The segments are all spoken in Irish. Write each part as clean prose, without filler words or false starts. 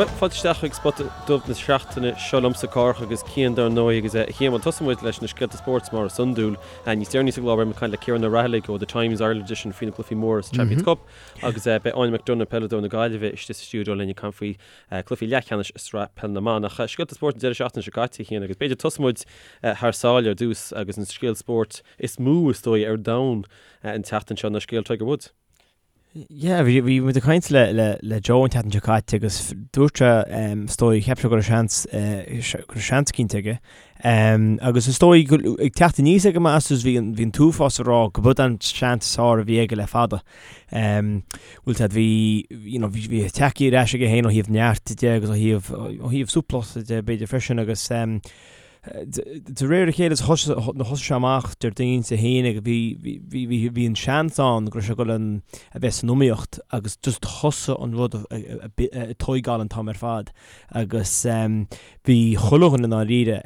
Bhuel, fáilte isteach chuig Spota Dubh na seachtaine seo liomsa, Cárthach agus Cian dar ndóigh agus a Chian, bhuel tosóidh muid leis na scéalta spóirt mar is iondúil. Níos deireanaí sa gclár beidh muid ag caint le Ciarán Ó Raghallaigh ó The Times Ireland Edition faoi na cluichí móra sa Champions Cup agus beidh Áine McDonagh, peileadóir na Gaillimhe, istigh sa stiúideo linn ag caint faoi cluichí leathcheannais i Sraith Peile na mBan. Ach scéalta spóirt an deireadh seachtaine seo caite, a Chian, agus b'fhéidir tosóidh muid thar sáile ar dtús agus an scéal spóirt is mó is dóigh ar domhan an tseachtain seo ná scéal Tiger Woods. Yeah, bhí bhí muid ag caint le le le Joe an tseachtain seo caite agus dúirt sé um, is dóigh cheap sé go raibh seans eh, go raibh seans cinnte aige. Um, agus is dóigh go ag teacht aníos ag an Masters bhí an bhí an t-uafás ag rá go b'é an seans is fearr a bhí aige le fada. Um, bhfuil a fhios agat bhí you know, bhí bhí tagtha ar ais aige féin ó thaobh neart de agus ó thaobh ó thaobh súplacht de b'fhéidir freisin agus um, De réir a chéile thosaigh sé amach Déardaoin Dé hAoine bhí bhí an seans ann go raibh sé ag dul a bheith san iomaíocht agus just thosaigh an rud ag tóigeáil an t-am ar fad agus bhí chuile dhuine i ndáiríre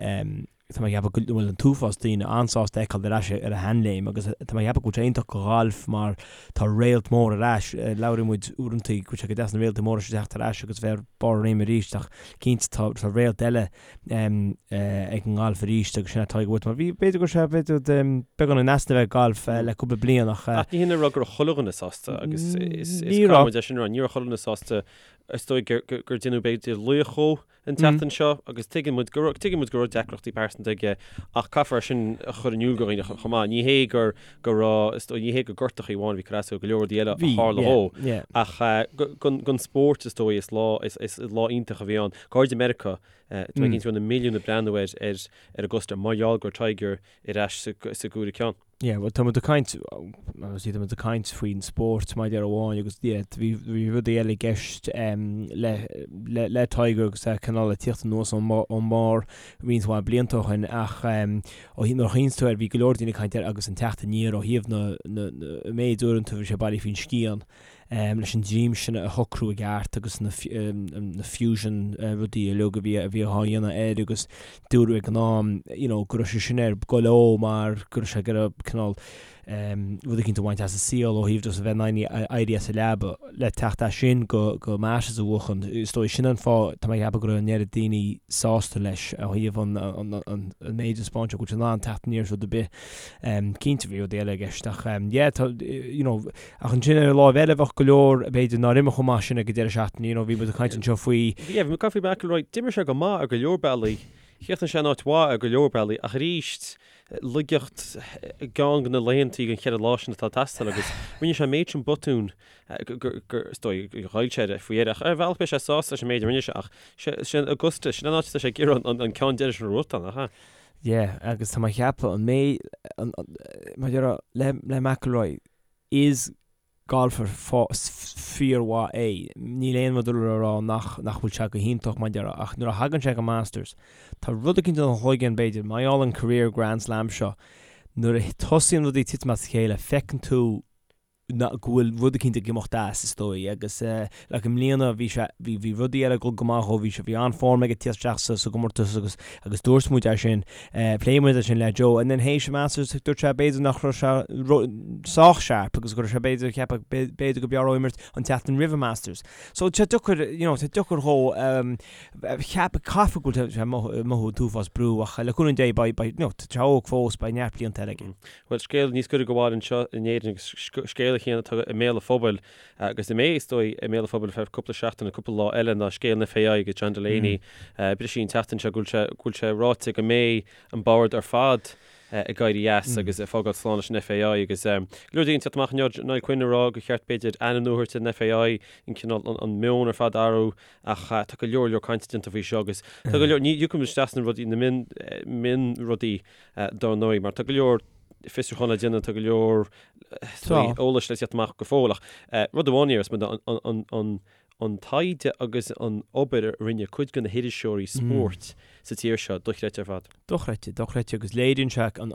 tá mé ag ceapadh go bhfuil an t-uafás daoine an-sásta é a fheiceáil ar ais ar a sheanléim agus tá mé ag ceapadh go bhfuil sé iontach do ghalf mar tá réalt mór ar ais. Labhraíonn muid uaireanta go bhfuil sé go deas na réaltaí móra seo teacht ar ais agus bheith ar barr a réime arís ach cinnte tá réalt eile ag an ngalf arís agus sin é Tiger Woods mar bhí b'fhéidir go raibh sé b'fhéidir beagán in easnamh ag galf le cúpla bliain ach. Ach ní hin a rá go raibh chuile dhuine sásta agus is caithfidh muid é sin a rá, ní raibh chuile dhuine sásta is dóigh gur déanadh b'fhéidir laoch dhó an tseachtain seo agus tuigeann muid go raibh tuigeann muid go raibh deacrachtaí pearsanta aige ach caithfear é sin a chur in iúl do dhaoine chomh maith. Ní hé gur go raibh is dóigh ní hé gur gortachaí amháin a bhí ag cur as dó, go leor rudaí eile a tharla dhó ach don spórt is dóigh is lá is lá iontach a bhí ann. Go háirid i Meiriceá, tá mé cinnte go raibh na milliúin ag breathnú ar ar Augusta mar gheall go raibh Tiger ar ais sa gcúigiú ceann. Yeah, bhuel tá muid ag caint, obviously tá muid ag caint faoin spórt mar a déarfá amháin agus yeah, bhí bhí rudaí eile i gceist le le le Tiger agus é cineál ag tíocht anuas ón ón mbarr roinnt mhaith blianta ó shin ach ó thaobh nuair a chuimhníonn tú air bhí go leor daoine ag caint air agus an teacht aniar ó thaobh na na na méid uaireanta a bhí sé bailithe faoin scian. leis an droim sin a shocrú i gceart agus na fusion rudaí uilig a bhí a bhí á dhéanamh air agus dúradh ag an am you know go raibh sé sin ar goil dhó mar go raibh sé ag iarraidh cineál rud eicínt a bhaint as an saol ó thaobh just a bheith in ann éirí as an leaba le teacht as sin go go Masters a bhuachan. Is dóigh sin an fáth tá mé ag ceapadh go raibh an oiread daoine sásta leis ó thaobh an an an an méid a spáint go bhfuil sé in ann teacht aniar as rud ar bith. Cinnte bhí rudaí eile i gceist ach yeah tá you know Ach ansin ar an láimh eile bheadh go leor, b'fhéidir, nár imir chomh maith sin ag an deireadh seachtaine. You know, bhí muid ag caint anseo faoi. Yeah, bhí muid ag caint faoi McIlroy. D'imir sé go maith ar go leor bealaí. Chríochnaigh sé in áit mhaith ar go leor bealaí. Ach arís, laigeacht i gceann de na laethantaí den cheithre lá sin atá ag teastáil agus rinne sé an méid sin botún gur, is dóigh, gur ghoill sé air faoi dheireadh. Ach ar bhealach beidh sé sásta leis an méid a rinne sé ach sin Augusta, sin an áit atá sé ag iarraidh an ceann deiridh sin a bhuachtáil, nach ea? Yeah, agus tá mé ag ceapadh an méid, mar a déarfá, le, le McIlroy, is golfer fíormhaith é. Níl aon rud le rá nach nach bhfuil sé go hiontach mar a déarfá ach nuair a thagann sé go Masters, tá rud eicínt ina chloigeann b'fhéidir, mar gheall an career Grand Slam seo, nuair a tosaíonn rudaí ag titim as a chéile, feiceann tú go bhfuil rud eicínt ag imeacht as, is dóigh, agus like i mbliana bhí sé, bhí, bhí rudaí eile ag dul go maith dhó, bhí sé, bhí an-form aige tíocht isteach sa, sa gcomórtas agus, agus dúirt muid é sin, phléigh muid é sin le Joe and then théis an Masters dúirt sé b'fhéidir nach raibh sé sách sharp agus go raibh sé b'fhéidir ag ceapadh b'fhéidir go b'fhearr dhó imirt an tseachtain roimh an Masters. So tá sé deacair, you know, tá sé deacair dhó cheap, caithfidh go bhfuil sé ag mothú an t-uafás brú ach le cúnamh Dé beidh, beidh, you know, tá sé óg fós, beidh neart blianta eile aige. Bhuel, scéal níos gaire do bhaile anseo in Éirinn agus scéal a Chiain atá i mbéal an phobail agus a mbeidh, is dóigh, i mbéal an phobail ar feadh cúpla seachtain nó cúpla lá eile ná scéal an FAI agus John Delaney. Briseadh an tseachtain seo go bhfuil sé, go bhfuil sé ráite go mbeidh an bord ar fad ag éirí as agus ag fágáil slán leis an FAI agus go leor daoine ag teacht amach inniu, Niall Quinn ag rá gur cheart b'fhéidir ainm nua a thabhairt ar an FAI, an cineál, an meon ar fad a athrú ach tá go leor leor cainte déanta faoi seo agus tá go leor, ní thiocfaidh muid isteach sna rudaí, na mion, mion rudaí dar ndóigh mar tá go leor fiosrúchán le déanamh, tá go leor eolais le teacht amach go fóill ach rud amháin a déarfas muid an taighde agus an obair a rinne cuid de na hiriseoirí spóirt sa tír seo dochreidte ar fad. Dochreidte, dochreidte agus léiríonn sé an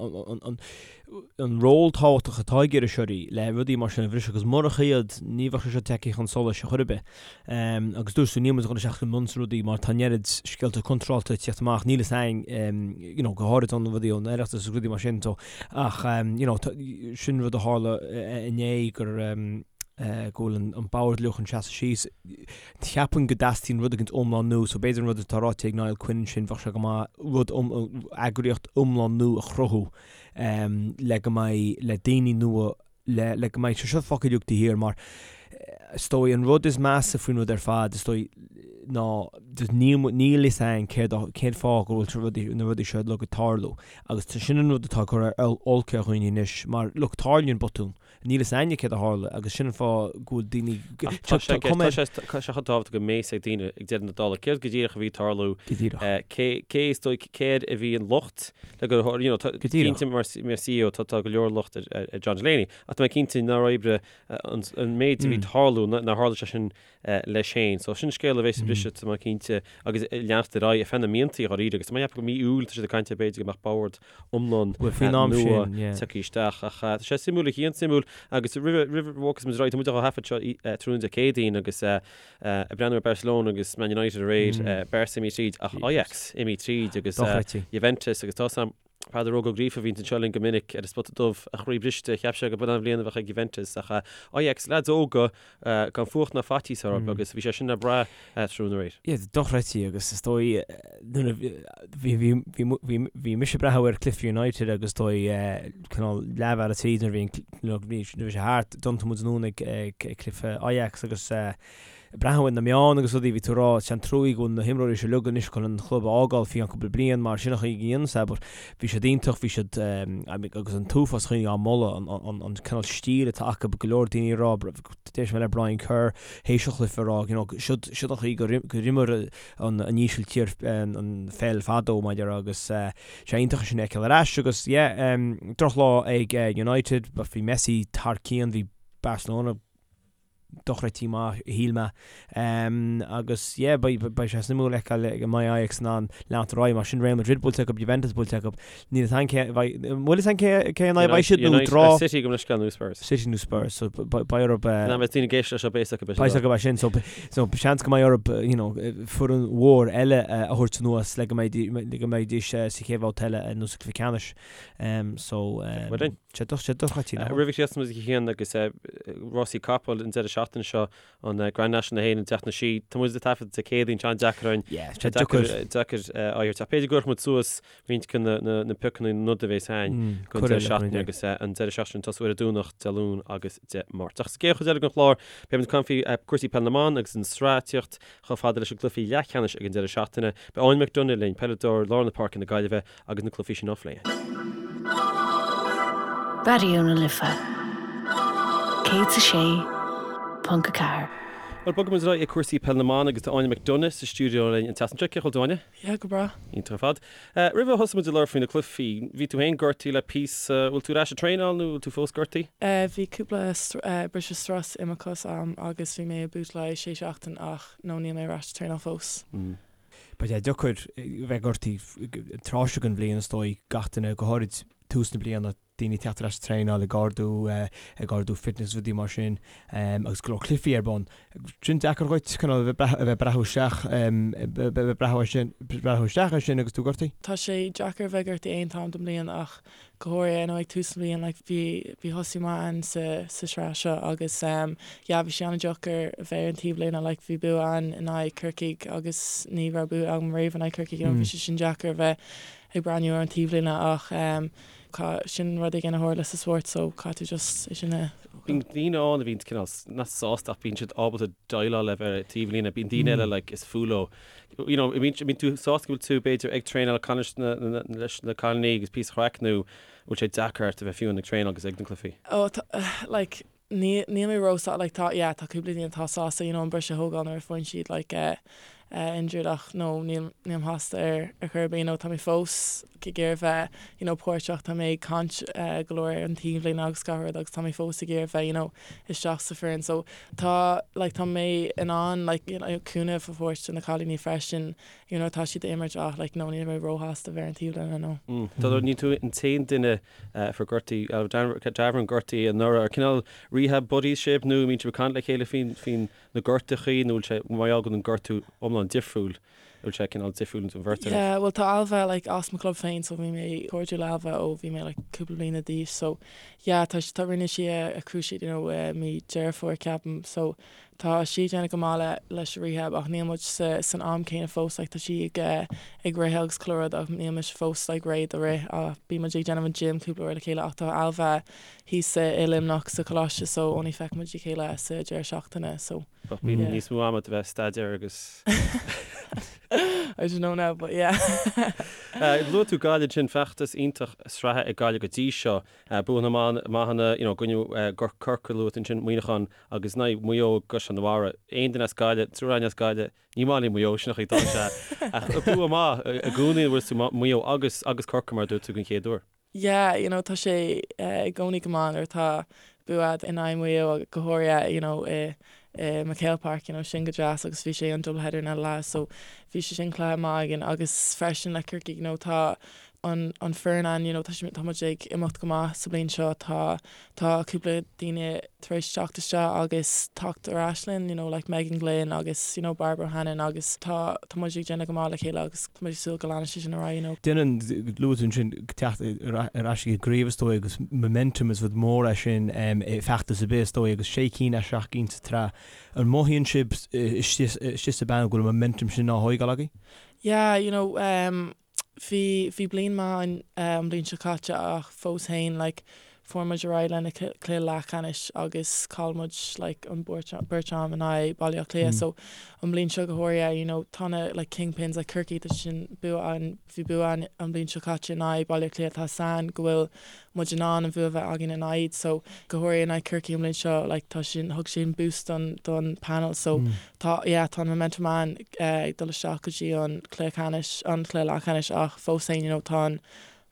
an ról tábhachtach atá ag iriseoirí le rudaí mar sin a bhriseadh agus murach iad ní bheadh sé seo tagtha chun solais ar chor ar bith. Agus dúirt tú níl muid ag dul isteach go mion sna rudaí mar tá an oiread scéalta contráilte ag tíocht amach, níl fhios againn you know go háirid an rudaí ón Oireachtas agus rudaí mar sin so ach you know sin rud a tharla inné gur. go bhfuil an bord uilig chun seasamh síos. Cheapfainn go dteastaíonn rud éigint iomlán nua, so b'fhéidir an rud atá ráite ag Niall Quinn ansin, bheadh sé go maith rud eagraíocht iomlán nua a chruthú le go mbeidh, le daoine nua, le le go mbeidh sé seo fágtha uilig taobh thiar mar is dóigh an rud is measa faoin rud ar fad is dóigh ná just níl níl fhios a'inn céard cén fáth go bhfuil rudaí na rudaí seo uilig ag tarlú agus sin an rud atá ag cur olc ar dhaoine anois mar look tarlaíonn botún Níl fhios a'inne céard a tharla agus sin an fáth go bhfuil daoine Ach tá sé tá sé tá sé chomh tábhachtach go mbeidh fhios ag daoine ag deireadh na dála céard go díreach a bhí ag tarlú, Go díreach. cé cé is dóigh céard a bhí an locht le go you know tá Go díreach. cinnte mar mar CEO tá tá go leor locht ar ar John Delaney ach tá mé cinnte nár oibrigh an an méid a bhí ag tarlú nár tharla sé sin leis féin. So sin scéal a bheas ag briseadh, tá mé cinnte, agus ag leanacht ar aghaidh ar feadh na míontaí dháiríre agus tá mé ag ceapadh go mí Iúil tá siad ag caint ar b'fhéidir go mbeadh bord iomlán nua tagtha isteach. Ach tá sé suimiúil a Chian, suimiúil agus roimh roimh a bhogfas muid ar aghaidh, tá muid á thaifead seo tráthnóna Dé Céadaoin agus ag breathnú ar Barcelona agus Man United aréir, Barca imithe tríd ach Ajax imithe tríd agus Juventus agus tá 's a'm Peadar Óg Ó Gríofa a bhíonns anseo linn go minic ar an Spota Dubh, a chroí briste, cheap sé go b'in an bhliain a bheadh ag Juventus ach Ajax, leaids óga gan fuacht ná faitíos orthu agus bhí sé sin le brath tráthnóna aréir. Yeah, dochreidte agus is dóigh nuair a bhí bhí bhí bhí bhí mise ag breathnú ar cluiche United agus is dóigh cineál leathbhealaigh tríd nuair a bhí an nuair a bhí sé thart, d'iompaigh muid anonn ag ag cluiche Ajax agus breathnú ar na meáin agus rudaí, bhí tú ag rá, is an truaí go bhfuil na himreoirí seo uilig anois chun an chlub a fhágáil faoi cheann cúpla bliain mar sin an chaoi go ndéanann sé but bhí siad iontach, bhí siad agus an t-uafás daoine á moladh, an cineál stíl atá acu, go leor daoine ag rá, d'éist mé le Brian Kerr théis an chluiche ag rá, you know, siod an chaoi gur imir an Ísiltír an pheil fadó mar a déarfá agus sé iontach sin a fheiceáil ar ais agus yeah, drochlá ag United, bhí Messi thar cionn, bhí Barcelona dochreidte maith, shíl mé. Agus yeah, beidh beidh sé suimiúil a fheiceáil an mbeidh Ajax in ann leanacht ar aghaidh mar sin Real Madrid buailte acu, Juventus buailte acu. Níl fhios a'inn cé bheidh, an bhfuil fhios a'inn cé cé in aghaidh a bheidh siad nó draw? City gabh mo leithscéal nó Spurs. City nó Spurs, so beidh orthu Ná beidh daoine ag éisteacht leis seo beidh fhios acu beidh fhios acu é sin, so so seans go mbeidh orthu you know foireann mhór eile a thabhairt anuas le go mbeidh le go mbeidís sa chéad bhabhta eile nó sa chluiche ceannais. So Bhuel. Sé dochreidte. Roimh a chríochnós muid a Chian agus rásaí capall an deireadh seachtaine seo, an Grand National na hÉireann an tseachtain seo. Tá muid ag taifead Dé Céadaoin, tá an-deacair orainn. Yeah, tá deacair. Deacair aghaidh a thabhairt. Ach b'fhéidir go gcuirfidh muid suas roinnt de na piocanna na noda a bheas againn don deireadh seachtaine agus an deireadh seachtaine tosú ar an Domhnach, Dé Luain agus Dé Máirt. Ach sa gcéad chuid eile den chlár, beidh muid ag caint faoi cúrsaí peile na mban agus an tsraith ag tíocht chomh fada leis na cluichí leathcheannais ag an deireadh seachtaine. Beidh Áine McDonagh linn, peileadóir lár na páirce na Gaillimhe, agus na cluichí sin á phlé. Raidió na Life 106.4. Bhuel, bogfaidh muid ar aghaidh ag cúrsaí peile na mban agus tá Áine McDonagh sa stiúideo linn an tseachtain seo. Cén chaoi a bhfuil tú, Áine? Yeah, go breá. Iontach ar fad. Roimh a thosóidh muid ag labhairt faoi na cluichí, bhí tú féin gortaithe le píosa, bhfuil tú ar ais ag traenáil nó bhfuil tú fós gortaithe? Bhí cúpla briseadh strus i mo chos a'm agus bhí mé i boot le haghaidh sé seachtain ach no níl mé ar ais ag traenáil fós. Beidh sé deacair bheith gortaithe tráth seo den bhliain is dóigh, gach duine, go háirid tús na bliana, daoine ag teacht ar ais ag traenáil, ag ardú, ag ardú fitness rudaí mar sin agus go leor cluichí ar bun. Sin deacair dhuit cineál a bheith ag breathnú isteach, a bheith ag breathnú ar sin, breathnú isteach ar sin agus tú gortaithe? Tá sé deacair a bheith gortaithe aon t-am den mbliain ach go háirithe you know ag tús na bliana like bhí bhí tosú maith a'inn sa sa sraith seo agus ehm yeah bhí sé an-deacair a bheith ar an taobhlíne like bhí bua a'inn in aghaidh Corcaigh agus ní raibh bua agam riamh in aghaidh Corcaigh you know bhí sé sin deacair a bheith ag breathnú ar an taobhlíne ach ehm sin rud éigin a tharla sa spórt so caithfidh tú just é sin a Bíonn daoine ann a bhíonn cineál nach sásta ach bíonn siad ábalta déileáil le bheith ar an taobhlíne bíonn daoine eile like is fuath leo you know, an mbíonn tú sásta go bhfuil tú, b'fhéidir, ag traenáil leis na, leis na cailíní agus píosa craic nó bhfuil sé deacair ort a bheith fiú ag traenáil agus ag na cluichí? Oh, tá, like, ní, níl mé ró-sá, like, tá, yeah, tá cúpla daoine atá sásta, you know, an briseadh a thógáil nuair a faigheann siad, like, eh, eh, injured ach, no, níl, nílim sásta ar, ar chor ar bith, you know, tá mé fós ag iarraidh bheith, you know, páirteach, tá mé ag caint, eh, go leor ar an taobhlíne agus gach rud agus tá mé fós ag iarraidh bheith, you know, isteach sa foireann so tá like tá mé in ann like you know cúnamh a thabhairt do na cailíní freisin you know tá siad ag imirt ach like no níl mé róshásta bheith ar an taobhlíne no. Tá níl tú an t-aon duine a fuair gortú Ailbhe Davoren gortaithe anuraidh ar cineál rehab buddies sibh nó an mbíonn sibh ag caint le chéile faoin faoin na gortachaí nó bhfuil sé mar gheall go bhfuil an gortú iomlán difriúil? Bhfuil sé cineál difriúil don bheirt agaibh? Yeah, bhuel tá Ailbhe like as mo club féin so bhí mé cairdiúil le Ailbhe ó bhí mé like cúpla bliana d'aois so yeah tá tá rinne sí a a cruciate you know i mí Deireadh Fómhair ceapaim so tá sí ag déanamh go maith le leis an rehab ach níl muid sa san am céanna fós like tá sí ag eh ag rith agus chuile rud ach níl mise fós like réidh do rith ach bíonn muid ag déanamh an gym cúpla uair le chéile ach tá Ailbhe thíos i Luimneach sa choláiste so only feiceann muid a chéile sa deireadh seachtaine so Bheadh bíonn níos mó ama do bheith ag staidéar agus. I don't know now but yeah. Luaigh tú Gaillimh ansin, feachtas iontach sraithe ag Gaillimh go dtí seo. Buanna maithe you know i gcoinne Corcaigh luaigh tú ansin, Muineachán agus in aghaidh Maigh Eo i gCaisleán na Mara. Aon duine as Gaillimh, triúr againn as Gaillimh, ní maith linn Maigh Eo, sin an chaoi atá sé. Ach bua maith i gcónaí bhfuil tú Maigh Eo agus agus Corcaigh mar a dúirt tú den chéad uair. Yeah, you know, tá sé i gcónaí go maith nuair atá bua agat in aghaidh Maigh Eo go háirithe, you know, i i MacHale Park, you know, sin go deas agus bhí sé an double header in lá so bhí sé sin cluiche maith againn agus freisin le Corcaigh, you know, tá an an foireann ann, you know, tá sé tá muid ag imeacht go maith sa bliain seo, tá Tá cúpla daoine tar éis teacht isteach agus teacht ar ais linn, you know, like Megan Glynn agus, you know, Barbara O'Hannon agus tá, tá muid ag déanamh go maith le chéile agus tá muid ag súil go leanfaidh sé sin ar aghaidh, you know. Déanann, luaigh tú ansin teacht ar ais ag an gcraobh is dóigh agus momentum is rud mór é sin i feachtas ar bith is dóigh agus sé cinn as seacht gcinn sa tsraith. An mothaíonn sibh istigh sa bpainéal go bhfuil an momentum sin á thóigeáil agaibh? Yeah, you know, um, Bhí, bhí bliain maith againn an bhliain seo caite ach fós fhéin like fuair muid ar aghaidh lena cluiche leathcheannais agus chaill muid like an beirt, beirt am in aghaidh Baile Átha Cliath so an bhliain seo go háirithe you know tá na like kingpins like Corcaigh tá sin bua againn, bhí bua againn an bhliain seo caite in aghaidh Baile Átha Cliath tá a fhios againn go bhfuil muid in ann an bhua a bheith againn in aghaidh so go háirithe in aghaidh Corcaigh an bhliain seo like tá sin thug sin boost don don panel so tá yeah tá an momentum ann ag dul isteach go dtí an cluiche ceannais an cluiche leathcheannais ach fós féin you know tá an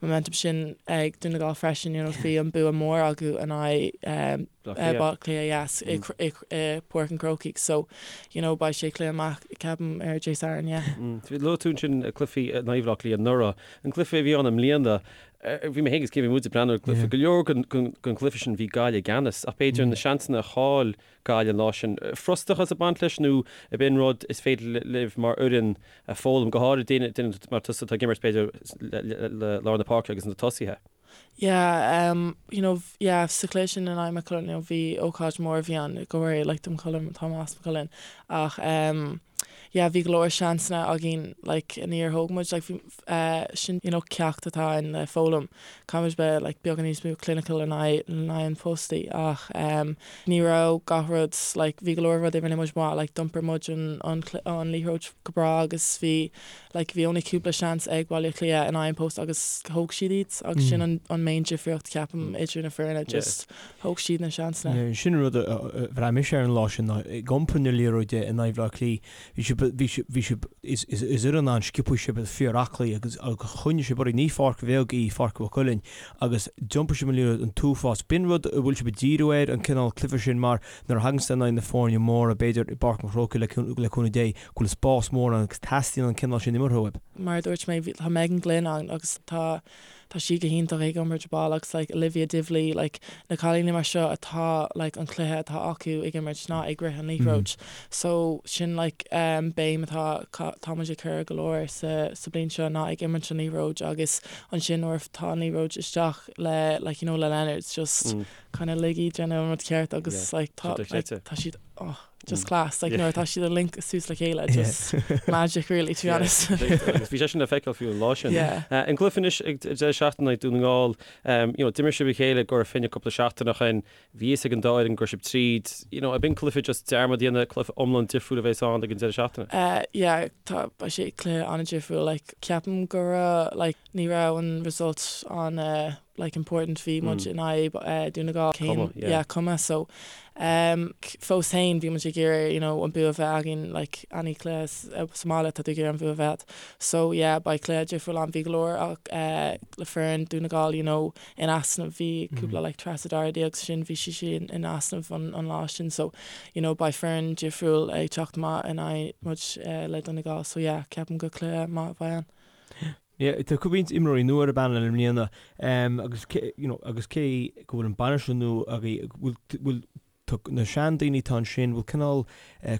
momentum sin ag Dún na Gall freisin you know bhí an bua mór acu in aghaidh Baile Átha Cliath yes i i i Páirc an Chrócaigh so you know beidh sé cluiche maith ceapaim ar Dé Sathairn yeah. Luaigh tú ansin cluichí in aghaidh Bhaile Átha Cliath anuraidh. An cluiche a bhí ann i mbliana Bhí mé féin agus Cian, bhí muid ag breathnú ar an gcluiche. Go leor den gcluiche sin bhí Gaillimh i gceannas ach b'fhéidir na seansanna a chaill Gaillimh an lá sin, frustrachas ag baint leis nó ab in rud is féidir libh mar fhoireann a foghlaim, go háirid duine mar tusa atá ag imirt b'fhéidir le lár na páirce agus na tosaithe? Yeah, you know, yeah, sa chluiche sin in aghaidh Maigh Cuilinn, you know, bhí ócáid mór a bhí ann, go háirithe like do Maigh Cuilinn, tá mé as Maigh Cuilinn, ach yeah, bhí go leor seansanna againn like níor thóg muid, like bhí, sin you know ceacht atá ann le foghlaim. Caithfidh muid bheith like beagán níos mó clinical in aghaidh in aghaidh an phostaí ach em ní raibh gach rud like bhí go leor rudaí a rinne muid maith like d'iompair muid an an an liathróid go breá agus bhí like bhí only cúpla seans ag Baile Átha Cliath in aghaidh an post agus thóg siad iad agus sin an an main difríocht ceapaim idir na foirne just thóg siad na seansanna. Sin an rud a bhraith mise ar an lá sin ná ag iompar na liathróide in aghaidh Bhaile Átha Cliath Bhí sibh, bhí sibh, bhí sibh, is, is, is fhoireann an-sciobtha sibh, fíor-aclaí agus, agus choinnigh sibh oraibh, ní pháirc bheag í Pháirc Mhaigh Cuilinn agus d'iompair sibh an liathróid an t-uafás. B'in rud a bhfuil sibh ag díriú air, an cineál cluiche sin mar nuair a thagann sibh in aghaidh na foirne móra, b'fhéidir i bPáirc an Chrócaigh le, le cúnamh Dé, go bhfuil spás mór ann agus teastaíonn an cineál sin imeartha uaibh. Mar a dúirt mé, bhí, tá Megan Glynn ann agus tá, tá sí go hiontach ag iompar ball agus like Olivia Divilly like na cailíní mar seo atá like an cluiche atá acu ag imirt ná ag rith an liathróid so sin like um béim atá tá muid ag cur go leor sa sa bliain seo ná ag imirt an liathróid agus ansin nuair atá an liathróid isteach le like you know le Leonards just kind of lig iad déanamh an rud ceart agus like tá like tá siad oh just class like nuair atá siad ag link suas le chéile just magic really to be honest. Agus bhí sé sin le feiceáil fiú an lá sin. An cluiche anois ag deireadh seachtaine in aghaidh Dún na nGall, you know d'imir sibh a chéile i gCora Finne cúpla seachtain ó shin, bhí fhios ag an dá fhoireann go raibh sibh tríd, you know ab in cluiche just dearmad a dhéanamh, cluiche iomlán difriúil a bheas ann ag an deireadh seachtaine? Yeah tá beidh sé cluiche an-difriúil like ceapaim go raibh like ní raibh an result an like important bhí muid in aghaidh Dún na nGall cén yeah cuma so um fós féin bhí muid ag iarraidh you know an bua a bheith againn like any cluiche sa mbaile tá tú ag iarraidh an bua a bheith so yeah beidh cluiche difriúil ann bhí go leor ach le foireann Dún na nGall you know in easnamh bhí cúpla like Treasa Doherty agus sin bhí sí sin in easnamh an an lá sin so you know beidh foireann difriúil ag teacht amach in aghaidh muid le Dún na nGall so yeah ceapaim go cluiche maith a bheidh ann. Yeah, tá roinnt imreoirí nua ar an bpainéal i mbliana agus cé, you know, agus cé go bhfuil an bainisteoir nua agaibh, bhfuil, bhfuil. Tá na seandaoine atá ansin, bhfuil cineál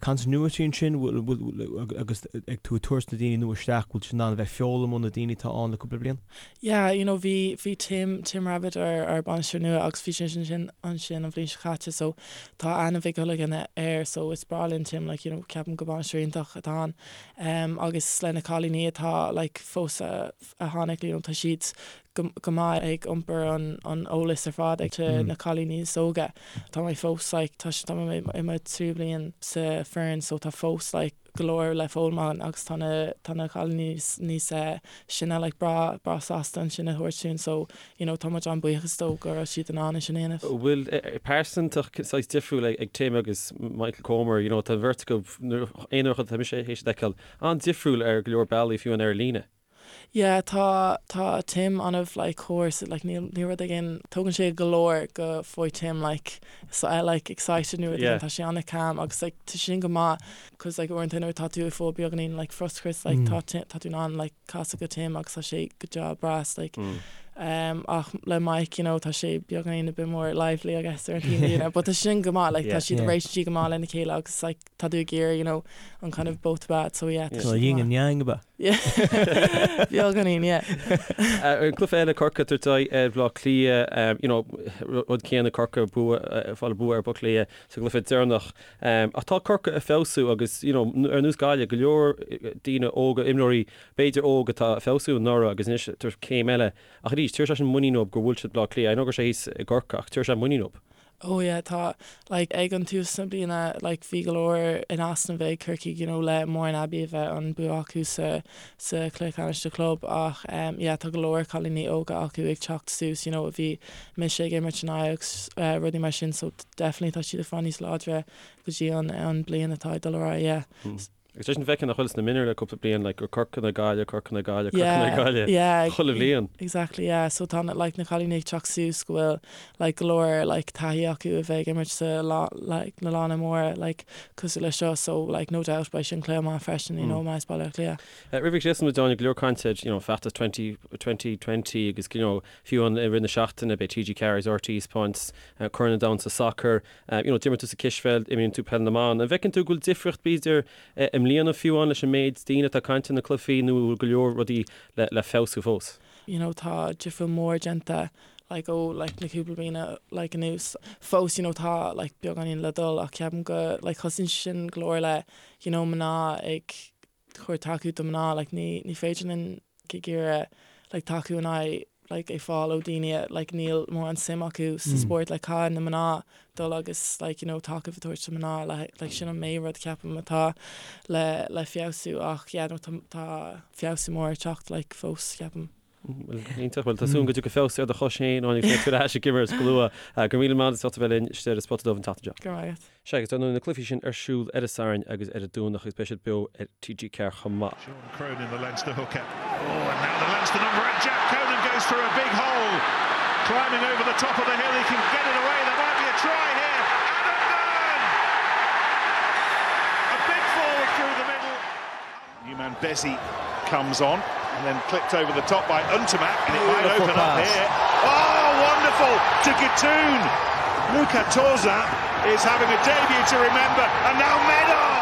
continuity ansin, bhfuil, agus ag tú ag tabhairt na daoine nua isteach, bhfuil siad in ann a bheith ag foghlaim ó na daoine atá ann le cúpla bliain? Yeah, you know, bhí, bhí Tim, Tim Rabbitte ár, ár bainisteoir nua agus bhí sé ansin, ansin an bhliain seo caite so tá aithne mhaith ag chuile dhuine air so is breá linn Tim, like, you know, ceapaim go bainisteoir iontach atá ann. Em, agus le na cailíní atá, like, fós a, a tháinig, you know, tá siad go, go maith ag iompar an, an eolas ar fad ag to na cailíní is óga. Tá mé fós, like, tá, tá mé i mo tríú bliain sa foireann so tá fós, like, go leor le foghlaim ann agus tá na, tá na cailíní níos sine like breá, breá sásta ansin a thabhairt dúinn so you know tá muid an-buíochas dóibh go raibh siad in ann é sin a dhéanamh. Bhfuil pearsantacht saghas difriúil ag Tim agus Michael Comer, you know tá an bheirt acu, aon rud atá mise théis a fheiceáil, an-difriúil ar go leor bealaí fiú ar líne. Yeah tá tá Tim an-mh like cóir so like níl níl rud éigin tógann sé go leor go bhfaighidh Tim like so eh like excited nó rud éigin tá sé an-calm agus like tá sin go maith cause like uaireanta nuair atá tú ag fáil beagáinín like frustrachas like tá Tim tá tú in ann like casadh go Tim agus tá sé go deá breá like um ach le Mike you know tá sé beagáinín a bit more lively I guess ar an taobhlíne but tá sin go maith like tá siad réitigh siad go maith lena chéile agus like tá tú ag iarraidh you know an kind of both bad so yeah tá So yin and yang ab ea? Yeah beagáinín yeah. An cluiche eile Corcaigh ag tabhairt aghaidh ar Bhleá Cliath you know rud céanna Corcaigh bua fáil bua ar Bhaile Átha Cliath sa gcluiche deireanach. Ach tá Corcaigh ag feabhsú agus you know ar nós Gaillimh go leor daoine óga imreoirí b'fhéidir óg atá ag feabhsú anuraidh agus anois ag tabhairt céim eile. Ach arís tabharfaidh sé sin muinín dóibh gur bhuail siad Bleá Cliath. I know go raibh sé thíos i gCorcaigh ach tabharfaidh sé muinín dóibh. Oh yeah tá like ag an tús na bliana like bhí go leor in easnamh ag Corcaigh you know le Mourne Abbey a bheith an bua acu sa sa chluiche ceannais do chlub ach em yeah tá go leor cailíní óga acu ag teacht suas you know a bhí mise ag imirt in aghaidh agus eh rudaí mar sin so definitely tá siad ag fáil níos láidre go dtí an an bliain atá ag dul ar aghaidh yeah. Agus leis an bhfeiceann nach bhfuil sna mionúir le cúpla bliain like gur Corcaigh nó Gaillimh, Corcaigh nó Gaillimh, Corcaigh nó Gaillimh Yeah, chuile bhliain. Exactly, yeah. So tá na like na cailíní ag teacht suas go bhfuil like go leor like taithí acu a bheith ag imirt sa lá like na lána móra like cosúil le seo so like no doubt beidh sin cluiche maith freisin you know más Baile Átha Cliath. Roimh go scriosfaidh muid Áine, go leor cainte ar you know feachtas 20 2020 agus you know fiú an i rith na seachtaine beidh TG4 agus RTÉ ag taispeáint Corn an Domhain sa sacar. You know, d'imir tú sa cispheil, imríonn tú peil na mban. An bhfeiceann tú go bhfuil difríocht b'fhéidir i mbliana fiú amháin leis an méid daoine atá ag caint ar na cluichí nó an bhfuil go leor rudaí le le feabhsú fós? You know, tá difríocht mór déanta like ó like na cúpla bliana like anuas. Fós you know tá like beagáinín le dul ach ceapaim go like thosaíonn sin go leor le you know mná ag chur tacú do mná like ní ní féidir linn ag iarraidh like tacú in aghaidh like ag fáil ó daoine like níl mórán suim acu sa spórt like caithfidh na mná dul agus like you know tacaíocht a thabhairt do mná le like sin an main rud ceapaim atá le le feabhsú ach yeah no tá tá feabhsú mór ag teacht like fós ceapaim. Bhuel, iontach. Bhuel, tá súil agam go dtiocfaidh feabhas ar do chois féin, Áine, agus go mbeidh tú ar ais ag imirt go luath. Go raibh míle maith agat as ucht a bheith linn istigh ar an Spota Dubh an tseachtain seo. Go raibh maith agat. Sea, agus dar ndóigh na cluichí sin ar siúl ar an Satharn agus ar an Domhnach agus beidh siad beo ar TG4 chomh maith. Sean Cronin, the Leinster hooker. Oh, and now the Leinster number eight, Jack Conan goes through a big hole. Climbing over the top of the hill, he can get it away. There might be a try here. Adam Byrne! A big forward through the middle. New man Bezzy comes on and then clipped over the top by Ntamack and it might open up here. Oh, wonderful to Guitoune. Luca Tauziat is having a debut to remember and now Medard!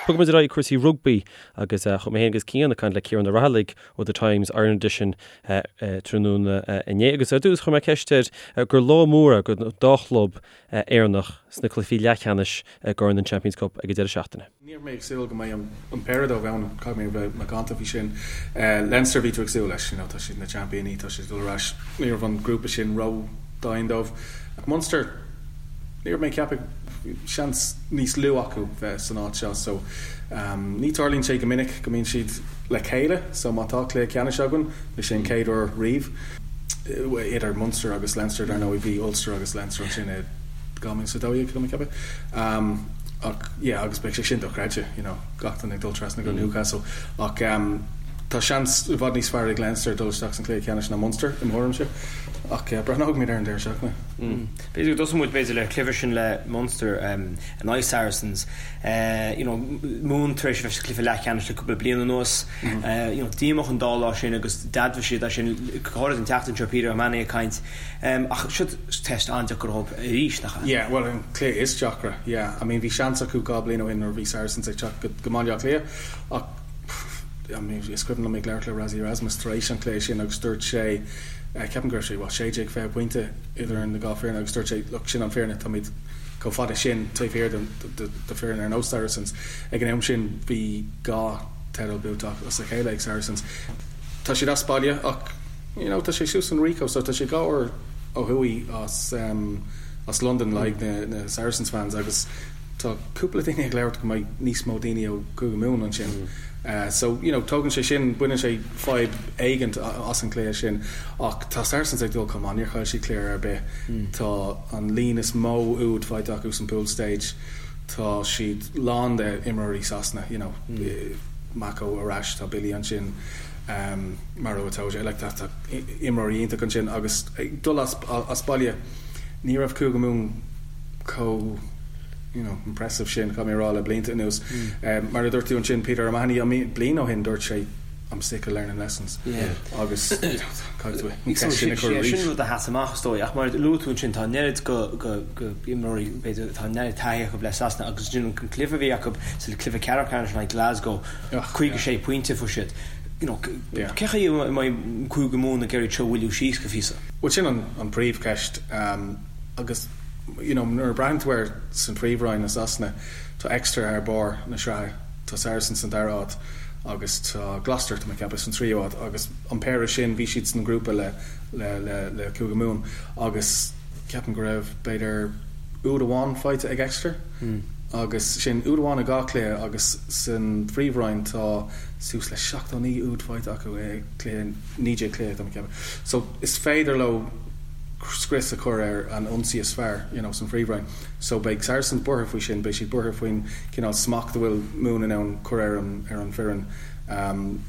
Bogfaidh muid ar aghaidh cúrsaí rugbaí agus chuaigh mé féin agus Cian ag caint le Ciarán Ó Raghallaigh ó The Times Ireland Edition tráthnóna inné agus ar dtús chuir mé ceist air gur lá mór é don dá chlub Éireannach sna cluichí leathcheannais i gCorn an Champions Cup ag an deireadh seachtaine. Ní raibh mé ag súil go mbeidh an péire dóibh ann, caithfidh mé a bheith macánta faoi sin. Leinster, bhí tú ag súil leis, you know, tá siad na seaimpíní, tá siad ag dul ar ais, ní raibh an grúpa sin ró-dhian dóibh. Ach Munster, ní raibh mé ag ceapadh, bhí seans níos lú acu bheith san áit seo so ní tarlaíonn sé go minic go mbíonn siad le chéile so má tá cluiche ceannais againn, beidh sé an chéad uair riamh idir Munster agus Leinster, dar ndóigh bhí Ulster agus Leinster ansin i 2012, tá mé ag ceapadh. Ach yeah agus beidh sé sin dochreidte you know gach duine ag dul trasna go Newcastle ach ehm Tá seans i bhfad níos fearr ag Leinster dul isteach san cluiche ceannais ná Munster, i mo thuairimse. Ach breathnóidh muid ar an deireadh seachtaine. B'fhéidir go dtosóidh muid b'fhéidir le cluiche sin le Munster in aghaidh Saracens. You know, Mumhan tar éis a bheith sa chluiche leathcheannais le cúpla bliain anuas. You know, díomách an dá lá sin agus d'admhaigh siad é sin go háirid an tseachtain seo, Peter O'Mahony ag caint. Ach seo teist an-deacair dóibh arís, nach ea? Yeah, bhuel an cluiche is deacra, yeah. I mean bhí seans acu 2 bliain ó shin nuair a bhí Saracens ag teacht go Baile Átha Cliath ach I mean is cuimhin liom ag labhairt le Rassie Erasmus tar éis an chluiche sin agus dúirt sé, ceapaim go raibh sé, what, 16, 20 pointe idir na dhá foireann agus dúirt sé look sin an fírinne, táimid chomh fada sin taobh thiar de foireann ar nós Saracens. Ag an am sin bhí dhá teideal buaite as a chéile ag Saracens. Tá siad as baile ach you know tá sé suas an Ricoh so tá sé 2 uair ó thuaidh as as Londain le haghaidh na Saracens fans agus tá cúpla duine ag labhairt go mbeidh níos mó daoine ó Chúige Mumhan ansin. So you know tógann sé sin, baineann sé fadhb éigint as an chluiche sin ach tá Saracens ag dul chomh maith, níor chaill siad cluiche ar bith. Tá an líon is mó úd faighte acu san pool stage, tá siad lán de imreoirí Sasana, you know Mako ar ais, tá Billy ansin, Maro Itoje, like tá tá imreoirí iontach ansin agus ag dul as as baile ní raibh Cúige Mumhan chomh you know impressive sin caithfidh mé a rá le blianta anuas. Mar a dúirt tú ansin Peter O'Mahony I mean bliain ó shin dúirt sé I'm sick of learning lessons agus you know caithfidh tú an ceist sin a chur arís. Sin rud a sheas amach is dóigh ach mar a luaigh tú ansin tá an oiread go go go imreoirí b'fhéidir tá an oiread taithí acu le Sasana agus ansin an cluiche a bhí acu sa cluiche ceathrú ceannais in aghaidh Glasgow 56 pointe a fuair siad. You know cé chaoi a mbeidh Cúige Mumhan ag iarraidh seo a mhoilliú síos go phíosa? Bhuel sin an príomhcheist agus you know nuair a braitheann tú air san Phríomhroinn i Sasana tá Exeter ar barr na sraithe, tá Saracens san dara áit agus tá Gloucester tá mé ag ceapadh san tríú áit agus an péire sin bhí siad san grúpa le le le le Cúige Mumhan agus ceapaim go raibh b'fhéidir úd amháin faighte ag Exeter agus sin úd amháin i dhá chluiche agus san Phríomhroinn tá suas le 79 úd faighte acu i cluiche 19 cluiche tá mé ag ceapadh so is féidir leo scrios a chur ar an ionsaí is fearr you know san Phríomhroinn. So beidh Saracens buartha faoi sin, beidh siad buartha faoin cineál smacht a bhfuil Mumhan in ann cur ar an ar an foireann.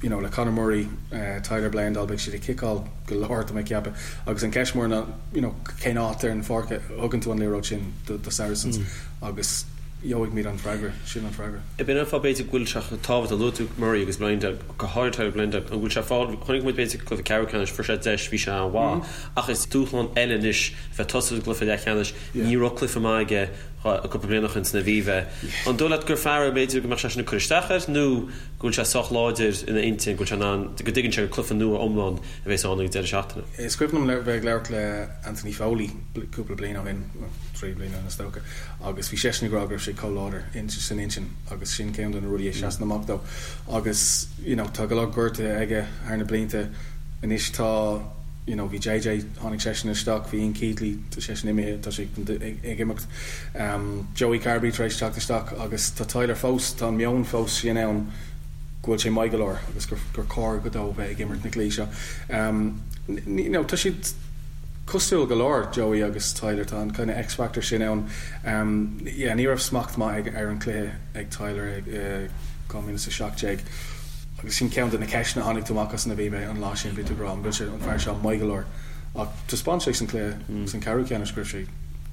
You know le Conor Murray, Tyler Bleyendaal beidh siad ag ciceáil go leor tá mé ag ceapadh agus an ceist mór ná you know cén áit ar an pháirc a thugann tú an liathróid sin do do Saracens agus gheobhaidh an freagra, sin an freagra. B'in an fáth b'fhéidir go bhfuil sé chomh tábhachtach, luaigh tú Murray agus Bleyendaal, go háirithe Tyler Bleyendaal, an bhfuil sé fáil, chonaic muid b'fhéidir cluiche ceathrú ceannais, fuair sé deis, bhí sé an-mhaith, ach is dúshlán eile anois a bheith tosaithe i gcluiche leathcheannais, ní raibh cluiche maith aige cúpla bliain ó shin san Aviva. An dóigh leat gur fear é b'fhéidir go mbeadh sé sin ag cur isteach air nó go bhfuil sé sách láidir ina intinn, go bhfuil sé in ann, go dtuigeann sé gur cluiche nua iomlán a bheas ann ag an deireadh seachtaine? Is cuimhin liom bheith ag labhairt le Anthony Foley cúpla bliain ó shin, 3 bliana ó shin is dócha, agus bhí seisean ag rá go raibh sé chomh láidir san intinn agus sin ceann de na rudaí a sheasann amach dó agus you know tá go leor gortuithe aige thar na blianta anois tá you know bhí JJ tháinig seisean isteach bhí Ian Keatley tá seisean imithe tá sé ag imeacht um, Joey Carbery tar éis teacht isteach agus tá Tyler fós tá an meon fós sin ann go bhfuil sé maith go leor agus gur, gur cóir go dó bheith ag imirt na cluichí seo. Um, you know, tá siad Cosúil go leor, Joey agus Tyler, tá an kind of X-factor sin ann. Yeah, ní raibh smacht maith ag ar an cluiche ag Tyler i 2017 agus sin ceann de na ceisteanna a tháinig tú amach as an Aviva an lá sin, bhí tú ag rá an bhfuil sé, an fear seo maith go leor ach taispeáin sé san cluiche, san ceathrú ceannais go raibh sé,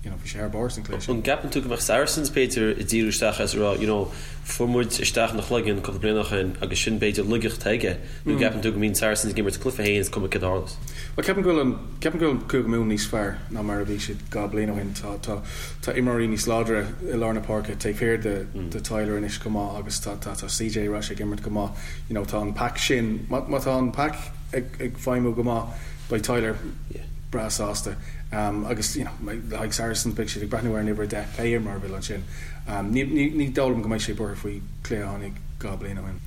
you know, bhí sé ar barr san cluiche sin. An gceapann tú go mbeadh Saracens b'fhéidir ag díriú isteach is ag rá, you know, fuair muid isteach ina chloigeann cúpla bliain ó shin agus sin b'fhéidir laigeacht aige nó gceapann tú go mbíonn Saracens ag imirt cluiche féin is cuma céard a tharlós? Bhuel, ceapaim go bhfuil an, ceapaim go bhfuil Cúige Mumhan níos fearr ná mar a bhí siad 2 bliain ó shin. Tá, tá, tá imreoirí níos láidre i lár na páirce taobh thiar de, de Tyler anois chomh maith agus tá, tá, tá CJ ar ais ag imirt go maith. You know, tá an pack sin, má, má tá an pack ag, ag feidhmiú go maith, beidh Tyler breá sásta. Um, agus, you know, le haghaidh Saracens, beidh siad ag breathnú ar an uimhir 10, pé imreoir a bhfuil ansin. Um, ní, ní, ní dóigh liom go mbeidh sé buartha faoi chluiche a tháinig 2 bliain ó shin.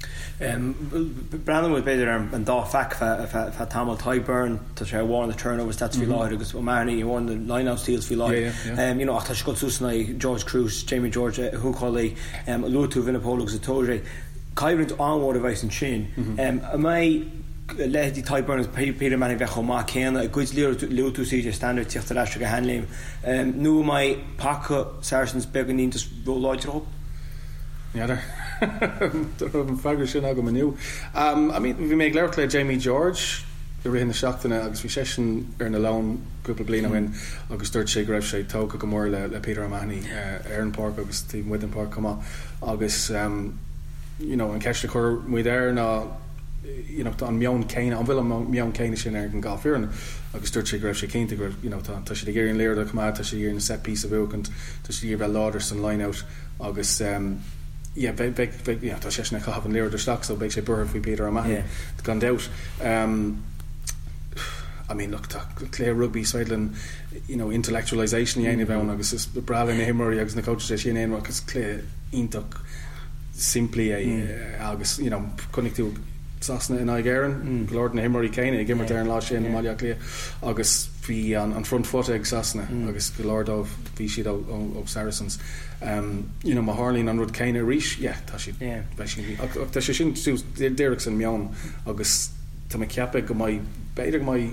Breathnóidh muid b'fhéidir ar an dá phac feadh tamaill. Tadhg Beirne, tá sé ar bharr na turnover stats faoi láthair agus O'Mahony ar bharr na lineout steals faoi láthair. You know, ach tá sé ag dul suas in aghaidh George Kruis, Jamie George, húcálaí. Luaigh tú Vunipola agus Itoje. Coimhlint an-mhór a bheas ansin. An mbeidh leithéidí Tadhg Beirne agus Peter O'Mahony bheith chomh maith céanna i gcuid luaigh tú CJ Stander ag tíocht ar ais ag a sheanléim nó an mbeidh paca Saracens beagáinín just ró-láidir dóibh? N'fheadar. Dá raibh an freagra sin agam inniu. I mean, bhí mé ag labhairt le Jamie George i rith na seachtaine agus bhí seisean ar na Leoin cúpla bliain ó shin agus dúirt sé go raibh sé tógtha go mór le Peter O'Mahony ar an pháirc agus taobh amuigh den pháirc chomh maith agus you know an ceist a chuir muid air ná you know tá an meon céanna, an bhfuil an meon céanna sin ar an dhá foireann agus dúirt sé go raibh sé cinnte go raibh you know tá tá siad ag iarraidh an liathróid a choimeád, tá siad ag iarraidh na set piece a bhuachaint, tá siad ag iarraidh bheith láidir san line out agus yeah beidh beidh beidh you know tá seisean ag caitheamh an liathróid isteach so beidh sé buartha faoi Peter O'Mahony gan dabht. I mean look tá cluiche rugbaí is féidir linn you know intellectualisation a dhéanamh ann agus is breá le na himreoirí agus na coaches é sin a dhéanamh ach is cluiche iontach simplí é agus you know chonaic tú Sasana in aghaidh Éireann, go leor de na himreoirí céanna ag imirt ar an lá sin i mBaile Átha Cliath agus bhí an front foot ag Sasana agus go leor dóibh bhí siad ó Saracens. You know má tharlaíonn an rud céanna arís, yeah, tá siad, beidh siad, ach tá sé sin suas díreach san meon agus tá mé ag ceapadh go mbeidh, b'fhéidir go mbeidh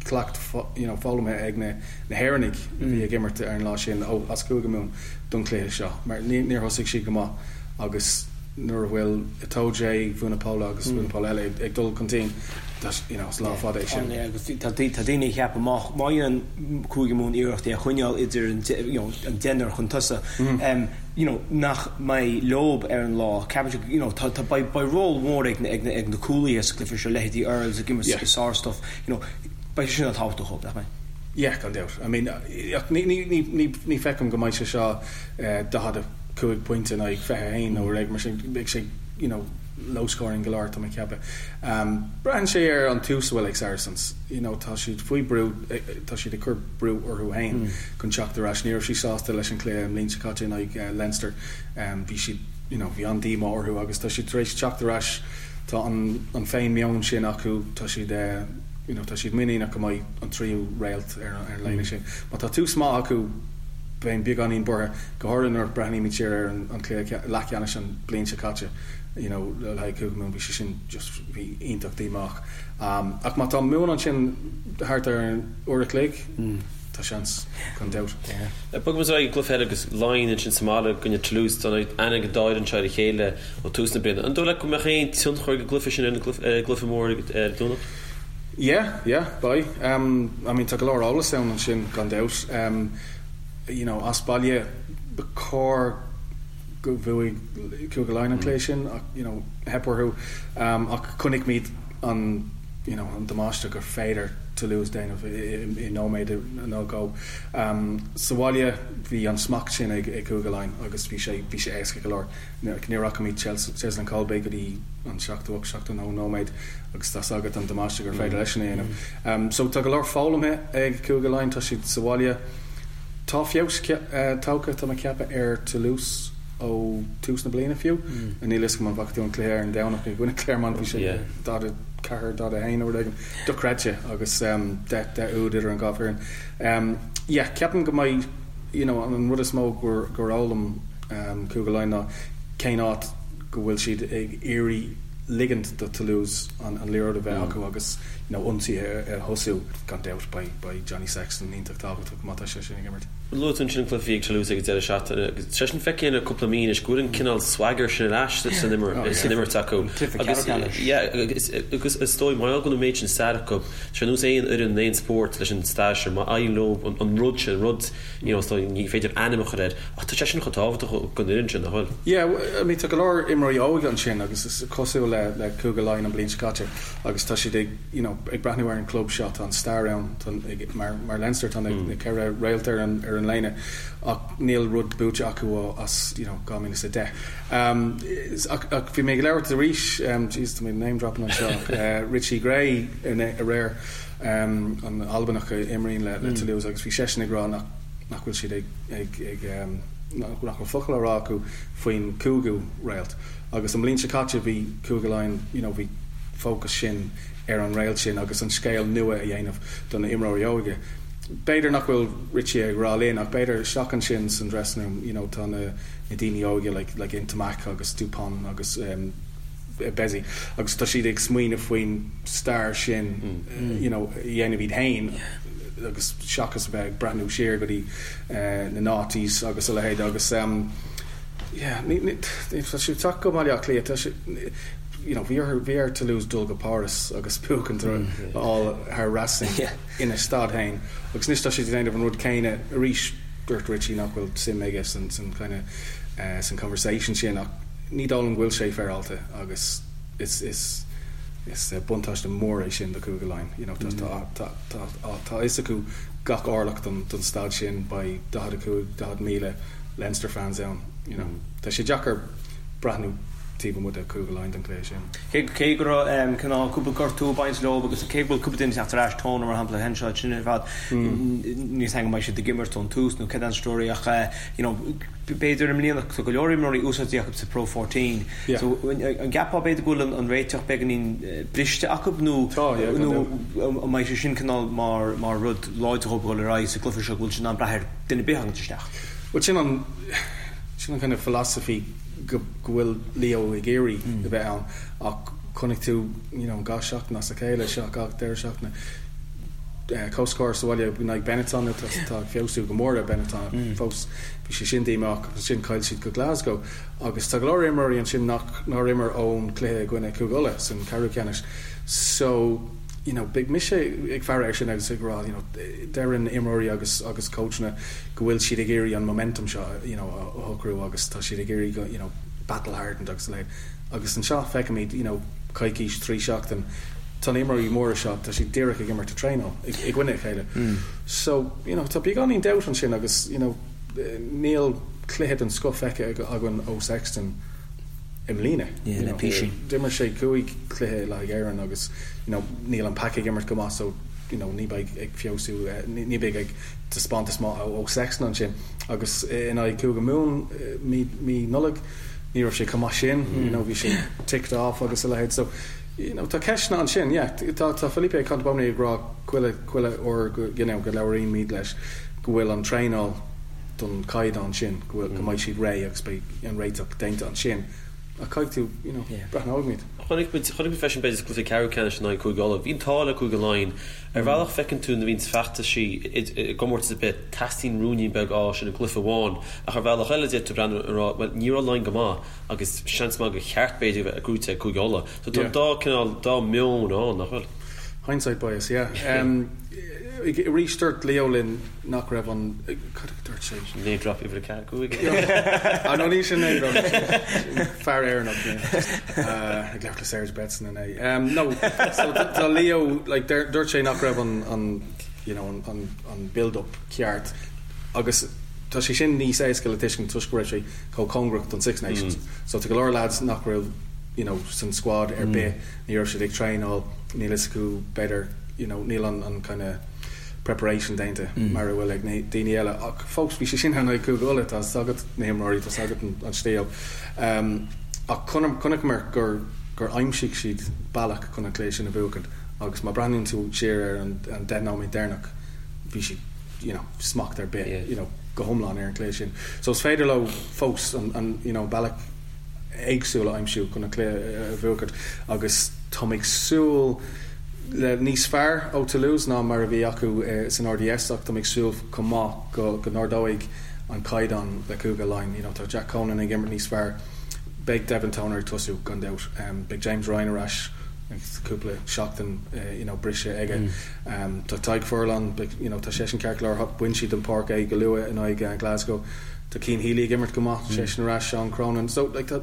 cleacht you know foghlamtha ag na hÉireannaigh a bhí ag imirt ar an lá sin ó as Cúige Mumhan don chluiche seo mar níor thosaigh siad go maith agus nuair a bhfuil Itoje, Vunipola agus Vunipola eile ag dul chun cinn, you know, is lá fada é sin. Agus tá daoine ag ceapadh má dhéanann Cúige Mumhan iarracht é a choinneáil idir an you know, an deichniúr chun tosaigh, you know, nach mbeidh leob ar an lá. Ceapann siad, you know, tá, tá, beidh, beidh ról mór ag na, ag na, ag na cúlaithe sa gcluiche seo, leithéidí Earls ag imirt sár-stuif, you know, beidh sé sin an-tábhachtach dóibh, nach mbeidh? Yeah, gan dabht. I mean, ach ní, ní, ní, ní, ní feicim go mbeidh sé seo 45 pointe in aghaidh 21 nó rud mar sin, beidh sé, you know, low scoring go leor, tá mé ag ceapadh. Braitheann sé ar an tús a bhfuil ag Saracens, you know, tá siad faoi brú, tá siad ag cur brú orthu féin chun teacht ar ais. Ní raibh siad sásta leis an chluiche an bhliain seo caite in aghaidh Leinster, bhí siad, you know, bhí an-díomá orthu agus tá siad tar éis teacht ar ais, tá an, an féin-meon sin acu, tá siad, you know, tá siad muiníneach go mbeidh an tríú réalt ar an léine sin. Má tá tús maith acu, bheinn beagáinín buartha, go háirithe nuair a breathnaímid siar ar an cluiche leathcheannais an bhliain seo caite, you know, le haghaidh Cúige Mumhan, bhí sé sin just, bhí iontach díomách. Ach má tá Mumhan ansin thart ar an uair a chloig, tá seans, gan dabht. Bogaimis ar aghaidh an gcluiche eile agus Laighin ansin sa mbaile i gcoinne Toulouse. Tá aithne ag an dá fhoireann seo ar a chéile ó tús na bliana. An dóigh leat go mbeadh aon tionchar ag an gcluiche sin ar an gcluiche mór ar an Domhnach? Yeah, yeah, beidh. I mean tá go leor eolas ann ansin gan dabht. You know, as baile ba chóir go bhuaigh Cúige Laighean an cluiche sin ach you know, theip orthu. Ach chonaic muid an you know, an damáiste gur féidir Toulouse déanamh i nóiméad nó dhó. Sa bhaile bhí an smacht sin ag Cúige Laighean agus bhí sé bhí sé éasca go leor. Ní fhaca muid Cheslin Kolbe go dtí an 78, 79 nóiméad agus tá's agat an damáiste gur féidir leisean a dhéanamh. So tá go leor foghlamtha ag Cúige Laighean, tá siad sa bhaile. Tá feabhas tagtha, tá mé ag ceapadh, ar Toulouse ó tús na bliana fiú. Níl fhios agam an bhfaca tú an cluiche ar an Domhnach i gcoinne Clermont, bhí sé 44, 41 nó rud éigin. Dochreidte agus 10 úd idir an dhá foireann. Yeah, ceapaim go mbeidh, you know, an rud is mó gur fhoghlaim Cúige Laighean ná cén áit go bhfuil siad ag iarraidh ligint do Toulouse an liathróid a bheith acu agus you know ionsaithe a thosú. Gan dabht beidh beidh Johnny Sexton iontach tábhachtach má tá sé sin ag imirt. Luaigh tú ansin an cluiche a bhí ag Toulouse ag an deireadh seachtaine agus tá sé sin feicthe le cúpla mí anois go bhfuil an cineál swagger sin ar ais san imirt acu. Cluiche ceannais. Yeah agus is dóigh mar gheall go bhfuil an méid sin stair acu, tá sé ar nós aon fhoireann in aon spórt leis an stair sin, má éiríonn leo an rud sin, an rud You know, is dóigh, ní féidir ainm a chur air, ach tá sé sin chomh tábhachtach don fhoireann sin, nach bhfuil? Yeah, I mean, tá go leor imreoirí óga ansin agus is cosúil le, le Cúige Laighean an bhliain seo caite agus tá siad ag, you know, ag breathnú ar an club seo, tá an stair ann, tá, ag, mar, mar Leinster, tá na, na ceithre réalt ar an, ar an léine ach níl rud buaite acu ó, as, you know, 2010. Um, ach, ach bhí mé ag labhairt arís, um, jeez, tá mé name dropping anseo, ach, uh, Richie Gray aréir, an Albanach a imríonn le Toulouse agus bhí seisean ag rá nach nach bhfuil siad ag ag ag nach bhfuil focal á rá acu faoin cúigiú réalt. Agus an bhliain seo caite bhí Cúige Laighean you know bhí fócas sin ar an réalt sin agus an scéal nua a dhéanamh do na imreoirí óga. B'fhéidir nach bhfuil Richie ag rá linn ach b'fhéidir isteach ansin san dressing room you know tá na na daoine óga like like Ntamack agus Dupont agus Bézy agus tá siad ag smaoineamh faoin stair sin you know a dhéanamh iad féin agus seachas a bheith ag breathnú siar go dtí na noughties agus a leithéid agus. Yeah, ní, ní, tá siad ag teacht go Baile Átha Cliath, tá siad, you know, bhí orthu, bhí ar Toulouse dul go Páras agus buachaint a fháil thar Racing ina staid féin agus anois tá siad ag déanamh an rud céanna arís. Dúirt Richie nach bhfuil suim aige san, san kind of, san conversation sin ach ní dóigh liom go bhfuil sé féaráilte agus is, is, is buntáiste mór é sin do Chúige Laighean. You know, tá, tá, tá, tá, tá a fhios acu gach orlach don, don staid sin, beidh 45, 40,000 Leinster fans ann, you know. Tá sé deacair breathnú taobh amuigh de Chúige Laighean don chluiche sin. Cé go raibh cineál cúpla gortú ag baint leo agus cé go bhfuil cúpla duine ag teacht ar ais, Toner mar shampla, Henshaw, sin ar fad, níl 's agam an mbeidh siad ag imirt ón tús nó cad é an story ach you know b'fhéidir i mbliana tá go leor imreoirí úsáidte acu sa Pro 14 so an gceapfá b'fhéidir go bhfuil an réiteach beagáinín briste acu nó nó an mbeidh sé sin cineál mar mar rud láidir dhóibh dul ar aghaidh sa gcluiche seo go bhfuil siad in ann brath ar duine ar bith a thagann isteach. Bhuel sin an sin an kind of philosophy go go bhfuil Leo ag iarraidh a bheith ann ach chonaic tú you know gach seachtain as a chéile seo gach deireadh seachtaine comhscór sa bhaile in aghaidh Benetton tá tá ag feabhsú go mór ar Benetton fós bhí sé sin díomách agus ansin chaill siad go Glasgow agus tá go leor imreoirí ansin nach nár imir ón cluiche i gcoinne Cúige Uladh san ceathrú ceannais so you know beidh mise ag faire air sin agus ag rá you know deireann imreoirí agus agus coachanna go bhfuil siad ag iarraidh an momentum seo you know a shocrú agus tá siad ag iarraidh go you know battle hardened agus a leithéid agus anseo feicimid you know coicís 3 seachtain tá na imreoirí móra seo tá siad díreach ag imirt ag traenáil i gcoinne a chéile so you know tá beagáinín doubt ansin agus you know níl cluiche den scoth feicthe againn ó Sexton i mbliana. Yeah, le písín. D'imir sé 5 chluiche le haghaidh Éireann agus you know níl an pack ag imirt go maith so you know ní bheidh ag feabhsú ní bheidh ag taispeántas maith ó Sexton ansin agus in aghaidh Cúige Mumhan mí mí Nollag ní raibh sé chomh maith sin you know bhí sé ticked off agus a leithéid so you know tá ceisteanna ansin yeah tá tá Felipe Contepomi ag rá chuile chuile uair go you know go labhraímid leis go bhfuil an traenáil don chaighdeán sin, go bhfuil, go mbeidh siad réidh agus beidh an réiteach déanta ansin. Ach caithfidh tú, you know, breathnóimid. Chonaic muid, chonaic muid freisin b'fhéidir sa gcluiche ceathrú ceannais in aghaidh Cúige Uladh. Bhí an t-ádh le Cúige Laighean. Ar bhealach feiceann tú nuair a bhíonns feachtaisí i gcomórtas ar bith, teastaíonn ruainnín beag ádh sin i gcluiche amháin. Ach ar bhealach eile d'fhéadfá breathnú a rá, bhuel ní raibh Laighin go maith agus seans maith gur cheart b'fhéidir a bheith gnóite ag Cúige Uladh. So tá an dá cineál, dá meon ann, nach bhfuil? Hindsight bias, yeah. Arís dúirt Leo linn nach raibh an, cad a dúirt sé? Name drop uimhir 4, 5. Ah no ní sin name drop, sin fear Éireannach ag labhairt le Serge Betsen inné. No, so tá Leo, like dúirt sé nach raibh an, an, you know, an, an build up ceart agus tá sé sin níos éasca le tuiscint toisc go raibh sé chomh cóngarach don Six Nations. So tá go leor lads nach raibh, you know, san squad ar bith, ní raibh siad ag traenáil, níl fhios acu b'fhéidir, you know, níl an, an kind of preparation déanta mar a bhfuil ag na daoine eile ach fós bhí sé sin in aghaidh Cúige Uladh, tá 's agat na himreoirí, tá 's agat an stíl. Ach chonaiceamar gur gur aimsigh siad bealach chun an cluiche sin a bhuachaint agus má breathnaíonn tú siar ar an 10 nóiméad deireanach bhí siad you know smacht ar bith you know go hiomlán ar an cluiche sin. So is féidir leo fós an an you know bealach éagsúil a aimsiú chun an cluiche a bhuachaint agus táim ag súil le níos fearr ó Toulouse ná mar a bhí acu san RDS ach táim ag súil chomh maith go go n-ardóidh an caighdeán le Cúige Laighean. You know tá Jack Conan ag imirt níos fearr, beidh Devin Toner ag tosú gan dabht, beidh James Ryan ar ais agus cúpla seachtain you know briseadh aige. Tá Tadhg Furlong, beidh you know tá seisean ceart go leor, bhain siad den pháirc é go luath in aghaidh Glasgow. Tá Cian Healy ag imirt go maith, seisean ar ais, Seán Cronin. So like tá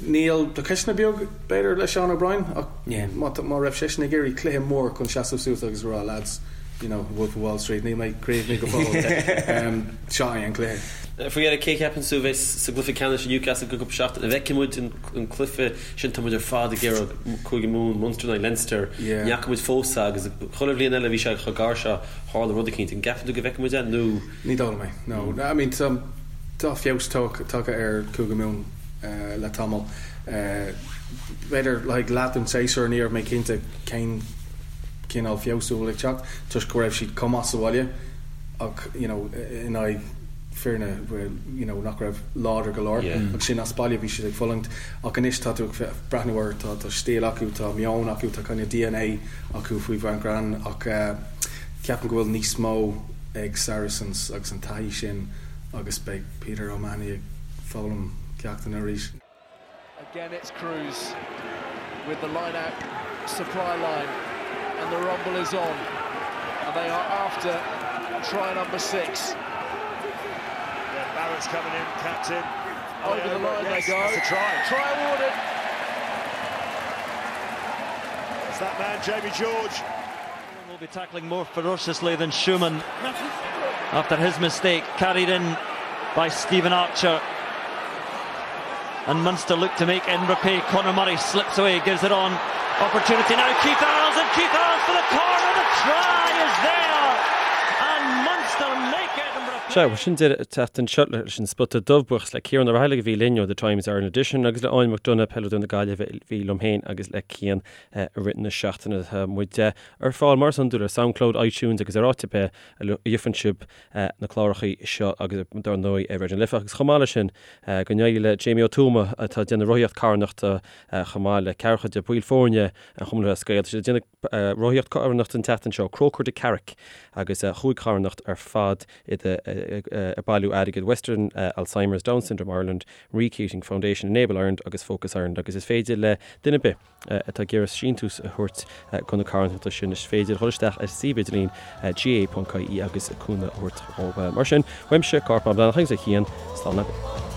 Níl, tá ceisteanna beag b'fhéidir le Seán O'Brien ach má má raibh seisean ag iarraidh cluiche mór chun seasamh suas agus a rá lads, you know, Wolf of Wall Street, níl mé críochnaithe go fóill. Seo é an cluiche. Faoi dheireadh, cé a cheapann tú a bheas sa gcluiche ceannais i Newcastle i gceann cúpla seachtain? An bhfeicfidh muid an cluiche sin? Tá muid ar fad ag iarraidh Cúige Mumhan, Munster in aghaidh Leinster. Ní fhaca muid fós é agus chuile bhliain eile bhí sé chomh gar seo, tharla rud eicínt. An gceapann tú go bhfeicfidh muid é nó? Ní dóigh liom é, no. I mean, tá feabhas tagtha ar Chúige Mumhan le tamall. B'fhéidir le haghaidh leath den séasúr ní raibh mé cinnte cén cineál feabhsú a bhfuil ag teacht toisc go raibh siad chomh maith sa bhaile ach you know in aghaidh foirne you know nach raibh láidir go leor agus sin as baile bhí siad ag fulaingt ach anois tá tú ag breathnú air tá tá stíl acu tá meon acu tá kind of DNA acu faoi Van Graan ach ceapaim go bhfuil níos mó ag Saracens agus an taithí sin agus beidh Peter O'Mahony ag. foghlaim ceachtanna arís. Again it's Cruz with the line out supply line and the rumble is on and they are after try number 6. Yeah, Barrett's coming in, captain. Over the line yes, they go. That's a try. Try awarded. It's that man, Jamie George. Will be tackling more ferociously than Schumann after his mistake, carried in by Stephen Archer. And Munster look to make in repay. Conor Murray slips away, gives it on. Opportunity now, Keith Earls, and Keith Earls for the corner. The try is there! And Munster make it and repay. Sea, sin deireadh an tseachtain seo leis an Spota Dubh buíochas le Ciarán Ó Raghallaigh a bhí linn ó The Times Ireland Edition agus le Áine McDonagh, peileadóir na Gaillimhe a bhí liom féin agus le Cian i rith na seachtaine. Tá muid ar fáil mar is iondúil ar Soundcloud, iTunes agus ar áit ar bith a gheofar sibh na clárachaí seo agus dar ndóigh ar Raidió na Life agus chomh maith leis sin go n-éirí le Jamie Ó Tuama atá ag déanamh rothaíocht carthanachta chomh maith le ceathracha de bhaill foirne an Chumann Lúthchleas Gael. Tá siad ag déanamh rothaíocht carthanachta an tseachtain seo, Croker to Carrick agus chúig charthanacht ar fad iad ag bailiú airgid Western Alzheimer's, Down Syndrome Ireland, Marie Keating Foundation, Enable Ireland agus Focus Ireland agus is féidir le duine ar bith atá ag iarraidh síntiús a thabhairt do na carthanachtaí sin, is féidir dhul isteach ar suíomh idirlín gaa.ie agus cúnamh a thabhairt dhóibh. Mar sin, uaimse, Cárthach Mac Breathnach agus ó Chian, slán agaibh.